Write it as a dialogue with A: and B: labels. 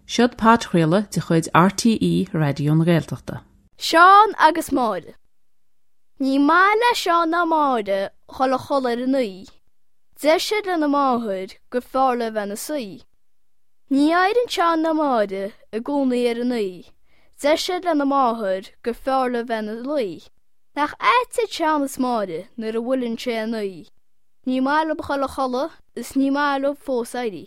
A: Seod podchraoladh de chuid RTÉ Raidió na Gaeltachta.
B: Seán agus Máire. Ní maith le Seán ná Máire dhul a chodladh ar a naoi. Deir siad lena máthair gur fearr leo bheith ina suí. Ní éiríonn Seán ná Máire i gcónaí ar a naoi. Deir siad lena máthair gur fearr leo bheith ina luí. Nach ait iad Seán is Máire nuair a bhuaileann sé a naoi. Ní maith leo dhul a chodladh is ní maith leo fós éirí.